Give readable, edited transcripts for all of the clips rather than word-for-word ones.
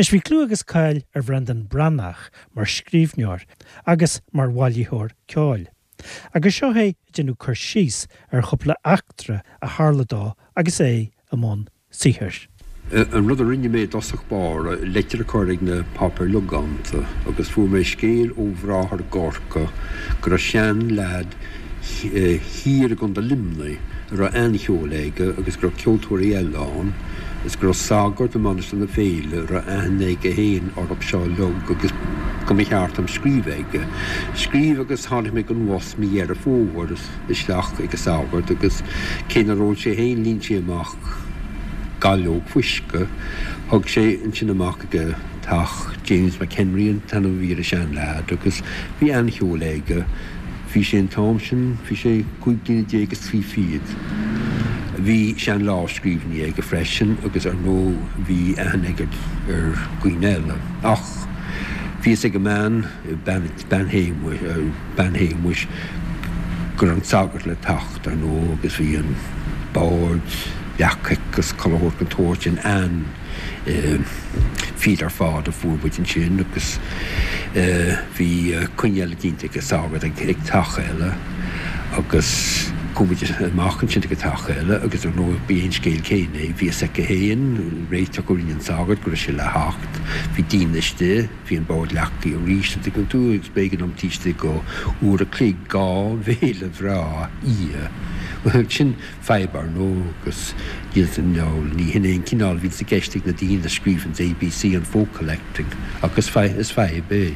Anois bhí clú agus cáil ar Bhreandán Breathnach mar scríbhneoir agus mar bhailitheoir ceoil. Agus seo é ag déanamh cur síos ar chúpla eachtra a tharla dó agus é i mbun saothair. An rud a rinne mé i dtosach báire, leitir a chur ag na páipéir logánta agus fuair mé scéal ó bhráthair i gCorcaigh go raibh sean-leaid thiar i gContae Luimnigh a raibh an-cheol aige agus go raibh ceoltóirí eile ann is go raibh sagart i Mainistir na Féile a raibh aithne aige féin orthu seo uilig agus go mba cheart dom scríobh aige. Scríobh agus tháinig mé den bhus mí Dheireadh Fómhair isteach ag an sagart agus cé nár ól sé féin líon sé amach gailleog fuisce. Thug sé ansin amach ag a teach James McHenry an t-ainm a bhí ar an sean-leaid agus bhí an-cheol aige. Bhí sé an t-am sin, bhí sé 15 bliana is 3 fichid. Bhí sean-lámhscríbhinní aige freisin agus ar ndóigh bhí aithne aige ar dhaoine eile. Ach bhí fhios ag an mbean, bean, bean Shéamuis, bean Shéamuis, go raibh an sagart le teacht, ar ndóigh, agus bhí an bord leagtha aici agus chuile shórt den tsórt sin an-fhíor ar fad a fuair muid ansin agus bhí coinne eile déanta ag an sagart ag teach eile agus chuaigh muid amach ansin ag an teach eile agus ar ndóigh b'é an scéal céanna é, bhí fhios aici féin, réiteach a rinne an sagart go raibh sé le theacht, bhí daoine istigh. Bhí an bord leagtha arís, an dtuigeann tú, agus b'éigean dom taobh istigh de uair a chloig 2 bhéile bhreá a ithe. Bhuel, sin fadhb, ar ndóigh, agus níl san, ní hin é an cineál a bhíonns i gceist ag na daoine a scríobhanns ABC on Folk Collecting, ach is fadhb é.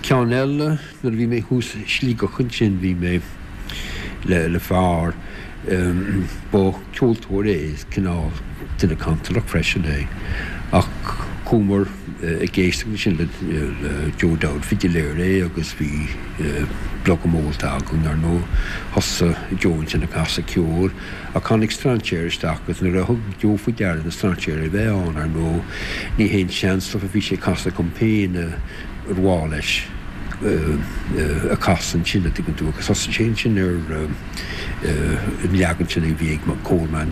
Ceann eile, nuair a bhí mé thuas i Sligeach ansin, bhí mé le fear, Ba ceoltóir é is cineál duine cantalach freisin é ach chuamar ag éisteacht ansin le Joe Dowd, fidiléir é agus bhí blogam ólta againn ar ndóigh. Thosaigh Joe ansin ag casadh ceoil ach tháinig strainséir isteach agus nuair a thug Joe faoi deara na strainséir a bheith ann ar ndóigh ní haon sean-stuff a bhí sé ag casadh dom féin ar mhaith leis a chasadh ansin a' dtuigeann tú agus thosaigh sé ansin ar an leagan sin a bhí ag Coleman,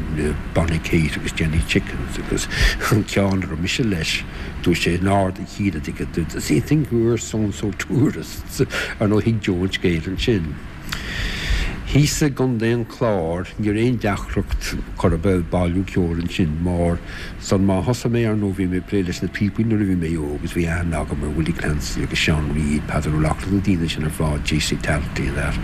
Bonnie Kate agus Jenny Chickens agus an ceann a raibh mise leis, dúirt sé in ard a chinn a dtuigeann tú, does he think we're so and so tourists? Ar ndóigh thuig Joe an scéal ansin. Thíos i gContae an Chláir ní raibh aon deacracht chor ar bith bailiú ceoil ansin mar San má thosaigh mé, ar ndóigh, bhí mé ag plé leis na píopaí nuair a bhí mé óg agus bhí aithne agam ar Willie Clancy agus Seán Reid, Peadar Ó Lochlainn, na daoine sin ar fad, J.C. Talty and that.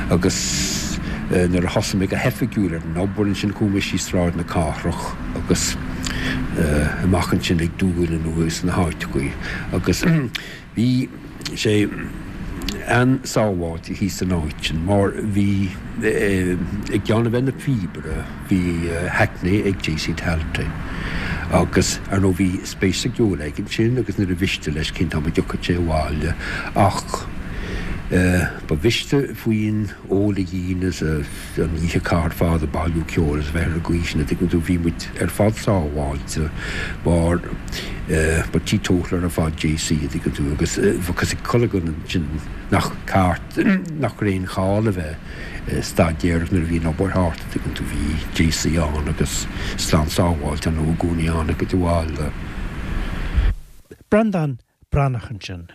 Agus nuair a thosaigh mé go hoifigiúil ar an obair ansin chuaigh mé síos Sráid na Cathrach agus amach ansin ag Dúill anuas na háiteachaí agus Bhí sé an-sábháilte thíos san áit sin mar bhí, i gceann a bheith ina phíobaire, bhí hackney ag J.C. Talty agus ar ndóigh bhí spéis sa gceol aige ansin agus níor mhiste leis cén t-am a dtiocfadh sé abhaile ach ba mhiste faoin ól a dhíon is a an oíche a chaitheamh ar fad ag bailiú ceoil is a bheith ar an gcaoi sin, a dtuigeann tú, bhí muid ar fad sábháilte mar ba teetotaler ar fad JC, a dtuigeann tú, agus bheadh fhios ag chuile dhuine ansin nach ceart, nach raibh aon chall a bheith ag staidéar nuair a bhí an obair thart, a dtuigeann tú, bhí JC ann agus slán sábháilte ar ndóigh i gcónaí ann ag an bhaile. Breandán Breathnach ansin.